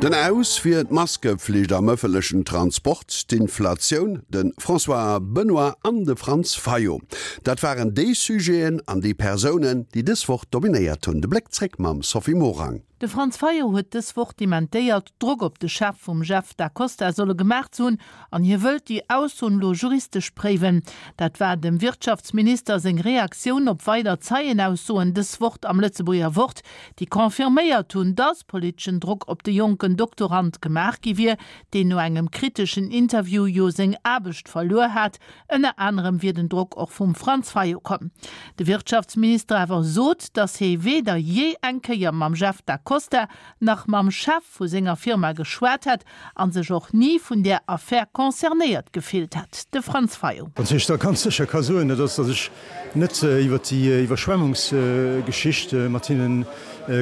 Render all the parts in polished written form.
Den Aus fir d'Maskeflicht am ëffentlechen Transport, d'Inflatioun, de François Benoy an de Franz Fayot. Dat waren déi Sujeten an déi Persounen, déi dës Woch dominéiert hunn. De Bléck zréck mam Sophie Morang. De Franz Fayot huet dës Woch dementéiert, Drock op de Chef vum Jeff Da Costa solle gemaach ze hunn an hie wëllt déi Aussoen elo juristesch préiwen. Dat war dem Wirtschaftsminister seng Reaktioun op weider Zeienaussoen dës Woch am Lëtzebuerger Wort, déi confirméiert hunn, datt politeschen Drock op de jonken Doktorand gemaach gi wier, deen no engem kriteschen Interview jo seng Aarbecht verluer hat. Ënner anerem wier den Drock och vum Franz Fayot komm. De Wirtschaftsminister awer sot, datt hie weder jee eng Kéier mam Jeff Da Costa nach mam Chef vu senger Firma geschwat hätt a sech och ni vun där Affär concernéiert gefillt hätt. De Franz Fayot. Wat ech da ganz sécher ka soen, dat ass, datt ech net iwwer déi Iwwerschwemmungsgeschicht mat hinne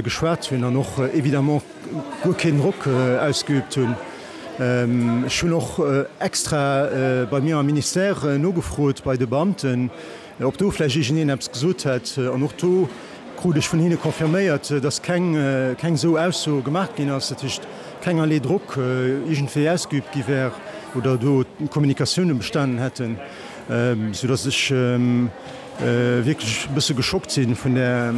geschwat hunn an och évidemment guer keen Drock ausgeübt hunn. Ech hunn och extra bei mir am Ministère nogefrot bei de Beamten, ob do vläicht iergendeen eppes gesot hätt. An och do krut ech vun hinne confirméiert, dass keng keng esou Ausso gemaach ginn ass, dat heescht kengerlee Drock iergendwéi ausgeübt gi wär oder do Kommunikatioune bestanen hätten, soudass ech wierklech e bësse geschockt si vun där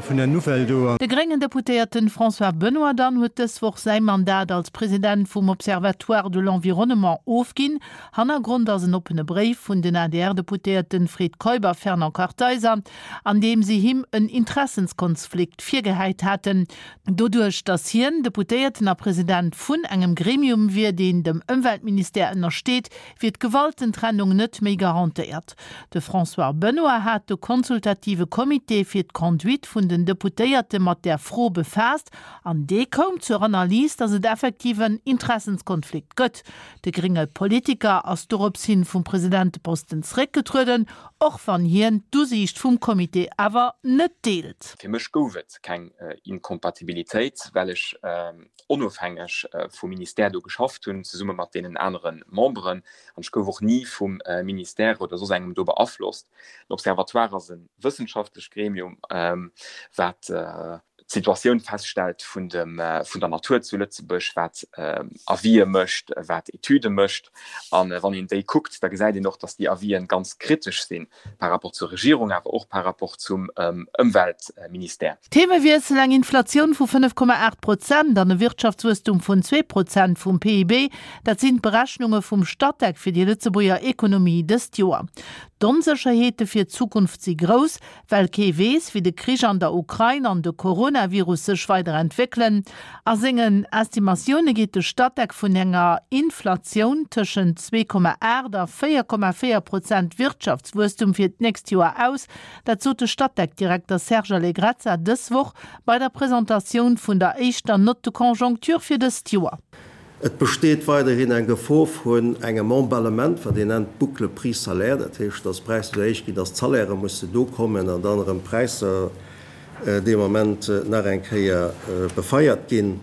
vun där Nouvelle do. De gréngen Deputéierten François Benoy dann huet dës Woch säi Mandat als President vum Observatoire de l'environnement ofginn. Hannergrond ass en oppene Bréif vun den ADR-Deputéierten Fred Keup a Fernand Kartheiser, an deem si him en Interessenskonflikt virgehäit haten, doduerch datt hien Deputéierten a President vun engem Gremium wier, deen dem Ëmweltministère ënnersteet, wier d'Gewaltentrennung net méi garantéiert. De François Benoy hat de consultative Comité fir d'Conduite vun den Deputéierte mat där Fro befaasst an dee koum zur Analys, datt et effektiv en Interessenskonflikt gëtt. De grénge Politiker ass dorops hin vum Presidenteposten zeréckgetrueden, och wann hien d'Usiicht vum Comité awer net deelt. Fir mech gouf et keng Inkompatibilitéit, well ech onofhängeg vum Ministère do geschafft hunn, zesumme mat deenen anere Memberen. An ech gouf och ni vum Ministère oder soss engem do beaflosst. Den Observatoire ass e wëssenschaftlecht Gremium, wat d'Situatioun feststellt vun dem, vun der Natur zu Lëtzebuerg, wat Avisë mécht, wat Etüde mécht. A wann een déi kuckt, da gesäit een och, datt déi Avisen ganz kritesch sinn par rapport zur Regierung, awer och par rapport zum Ëmweltministère. Themewiessel, Eng Inflatioun vu 5,8 Prozent an e Wirtschaftswuesstum vun 2 Prozent vum PIB, dat sinn d'Berechnunge vum Statec fir déi Lëtzebuerger Ekonomie dëst Joer. D'Onsécherheete fir d'Zukunft si grouss, well kee weess, wéi de Krich an der Ukrain an de Coronavirus sech weider entwéckelen. A sengen Estimatioune geet de Statec vun enger Inflatioun tëschent 2,8 a 4,4 Prozent Wirtschaftswuesstum fir d'nächst Joer aus. Dat sot de Statec-Direkter Serge Allegrezza dës Woch bei der Presentatioun vun der éischter Note de conjoncture fir dëst Joer. Et besteet weiderhin eng Gefor vun engem Emballement, wat een nennt boucle prix-salaire, dat heescht, dass d'Präisser esou héich ginn, dass d'Salairë musse do kommen an dann erëm d'Präisser dee Moment nach eng Kéier befeiert ginn.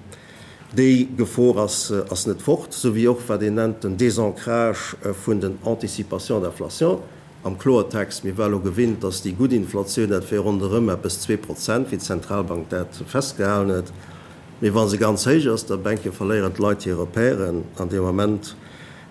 Déi Gefor ass ass net fort, esou wéi och wat een nennt den Désancrage vun den Anticipations d'inflation. Am Kloertext, mir war elo gewinnt, dass déi gutt Inflatioun, dat wär ronderëm eppes 2%, wéi d'Zentralbank dat festgehalen huet. Mee wa se ganz héich ass, da bänke verléieren d'Leit hir Repèren an dee Moment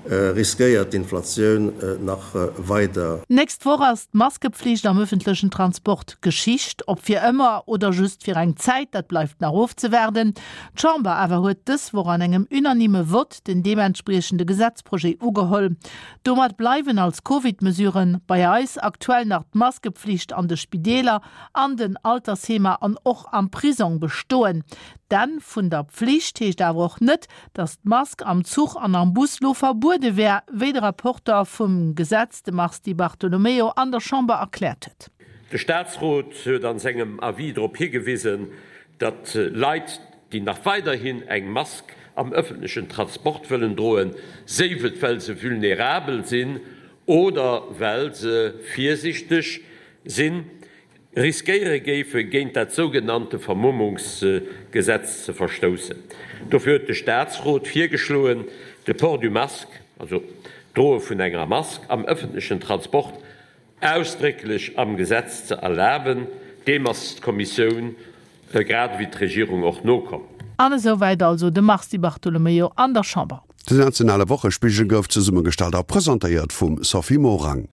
riskéiert d'Inflatioun nach weider. D'nächst Woch ass d'Maskepflicht am ëffentlechen Transport Geschicht. Ob fir ëmmer oder just fir eng Zäit, dat bleift nach ofzewaarden. D'Chamber awer huet dës Woch an engem unanime Vott den deementspriechende Gesetzprojet ugeholl. Domat bleiwen als Covid-Mesuren bei eis aktuell nach d'Maskepflicht an de Spideeler, an den Altersheemer an och am Prisong bestoen. D'Enn vun der Pflicht heescht awer och net, datt d'Mask am Zuch an am Bus lo verbuede wär, wéi de Rapporter vum Gesetz, de Mars Di Bartolomeo, an der Chamber erkläert huet. De Staatsrot huet an sengem Avis drop higewisen, datt Leit, déi nach weiderhin eng Mask am ëffentlechen Transport wëllen droen, séif et well se vulnerabel sinn oder well se virsichteg sinn, riskéiere géife géint dat sougenannte Vermummungsgesetz ze verstoussen. Dofir huet de Staatsrot virgeschloen, de Port du masque, also d'Droe vun enger Mask am ëffentlechen Transport, ausdrécklech am Gesetz ze erlaben. Deem ass d'Kommissioun grad ewéi d'Regierung och nokomm. An esou wäit also de Mars Di Bartolomeo an der Chamber. Den nationale Wochespigel gouf zesummegestallt a presentéiert vum Sophie Morang.